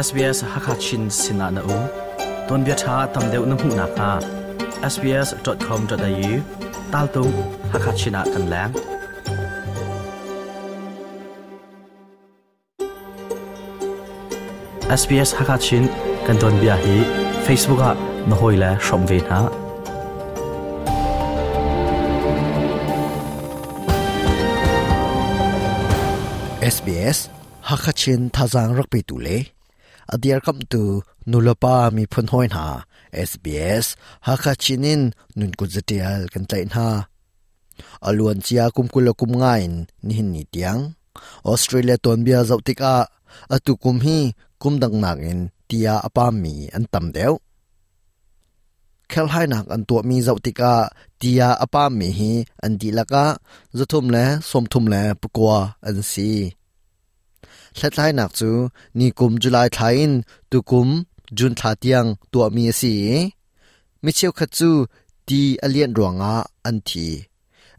SBS Hakha Chin sinah na um. Tuanbia ṭha tam deuh na hmuh nakhnga sbs.com.au taltung Hakha Chin ah kan leng. SBS Hakha Chin kan tuanbia hi Facebook ah na hawile hrawm ve hna. SBS Hakha Chin thazaang rak petu le a dirkamhtu nulepa miphun hawi hna SBS Hakha Chin in nun kut zatial kan tlaih hna. A luan cia kum kul le kum nga in nihin ni tiang Australia tuanbia zoh tikah atu kum hi kum dang nakin tia a pammi an tam deuh. Kherhlainak an tuahmi zoh tikah tia a pammi hi an dihlak ah 339 an si. Hlathlainak cu ni kum July thla in tukum June thla tiang tuahmi a si i mi cheukhat cu ti a lianh ruangah an thi.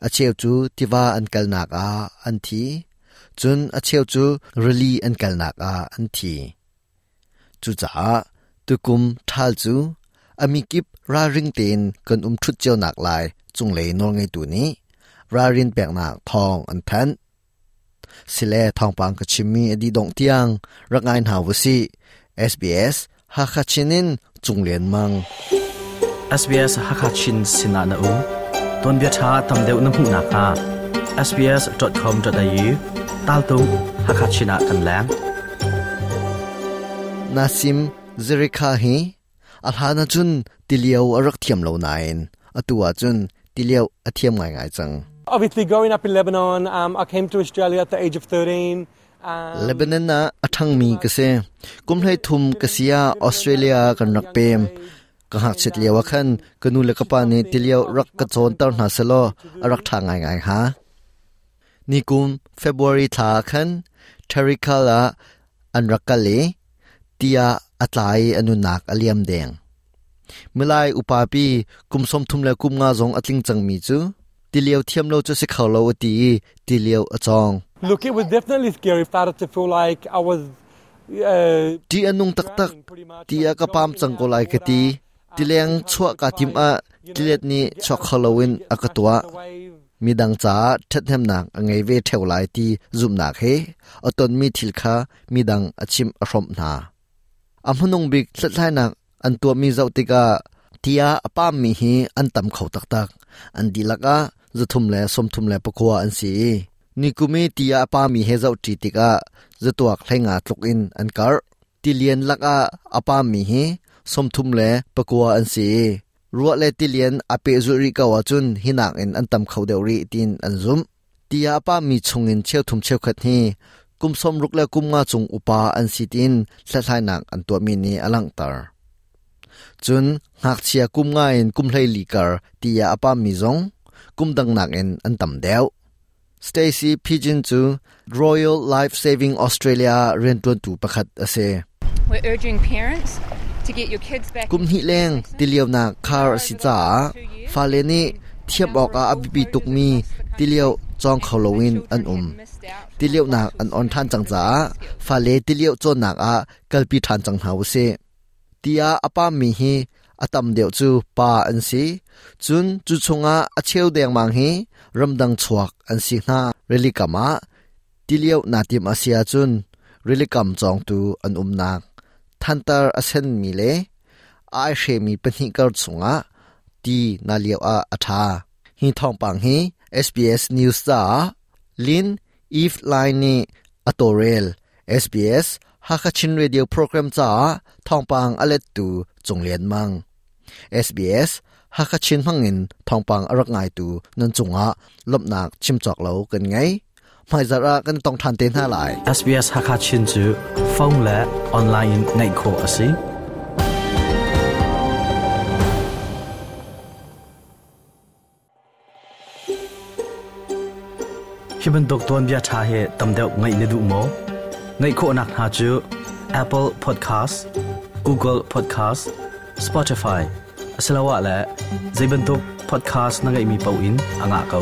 A cheu cu tiva an kalnak ah an thi. Cun a cheu cu rili an kalnak ah an thi. Cucaah tukum ṭhal cu a mikip ralring tein kan um ṭhut cio nak lai cunglei nawlngeitu nih ralrin peknak thawng an thanh. Sile thawngpang ka chimmi a dih dongh tiang rak ngai hna u sih. SBS Hakha Chin in Cung Lian Mang. SBS Hakha Chin sinah na um. Tuanbia ṭha tam deuh na hmuh nakhnga sbs.com.au taltung Hakha Chin ah kan leng. Nasim Zerikha hi a hlan ahcun tilio a rak thiam lo nain atu ahcun tilio a thiam ngaingai cang. Obviously, growing up in Lebanon, I came to Australia at the age of 13. Lebanon ah a ṭhangmi ka si. Kum 13 ka si ah Australia kan rak pem. Ka ngakchiat lio ah khan ka nu le ka pa nih tilio rak ka cawnter hna selaw a rak ṭha ngaingai hnga. Nikum February thla ah khan Terrical ah an rak kal i tiah a tla i a nunnak a liam deng. Milai upapi kum 35 zong a tling cangmi cu tilio thiam lo cu si kho lo a ti i tilio a cawng. Look, it was definitely scary. Started to feel like I was Ṭih a nung taktak. Ti ah ka pam cang ko lai ka ti. Tileng chuah kaa tim ah tilet nih chuak kho loin a ka tuah. Midang caah ṭhathnemnak a ngei ve ṭheo lai ti zumhnak he a tonmi thil kha midang a chimh a hrawmh hna. A hmanung bik hlathlainak an tuahmi zoh tikah ti ah a pammi hi an tam kho taktak. An dihlak ah 339 an si i nikum i ti ah a pami he zohṭi tikah zatuak 15 tluk in an karh. Tilian lakah a pammi hi 39 an si i ruah le tilian a pehzulh rih ko ahcun hi nakin an tam kho deuh rih tiin an zumh. Ti ah a pammi chungin cheuthum cheukhat hi kum 60 le kum nga cung upa an si tiin hlathlainak an tuahmi nih a langhter. Cun ngakchia kum nga in kum 14 kar ti ah a pammi zong kum dang nakin an tam deuh. Stacy Pigeon cu Royal Life Saving Australia rianṭuantu pakhat a si. We're urging parents to get your kids back. Kum hnih leng tilionak khar a si caah fale nih thiam awkah a biapi tukmi tilio cawng kho loin an um. Tilionak an on ṭhan cang caah fale tilio cawnnak ah kalpi ṭhan cang hna usih. Tiah a pammi hi a tam deuh cu pa an si. Cun cu chungah a cheu dengmang hi ramdang chuak an si hna. Rilikam ah tilio naa tim a si ahcun rilikam cawngtu an umnak thantar a senmi le a aihremi pahnih kar chungah ti na lio ah a ṭha. Hi thawngpang hi SBS News caah Lin Eve Lai nih a tawlrel. SBS Hakha Chin Radio program caah thawngpang a lettu Cung Lian Mang. SBS Hakha Chin hmangin thawngpang a rak ngaitu nan cungah lawmhnak chim cawk lo kan ngei. Hmaizarh ah kan tong ṭhan te hna lai. SBS Hakha Chin cu phone le online in ngaih khawh a si. Hi bantuk tuanbia ṭha hi tam deuh ngaih na duh maw? Ngaih khawhnak hna cu Apple Podcast, Google Podcast, Spotify asiloah le zei bantuk podcast na ngeihmi paoh in a ngah ko.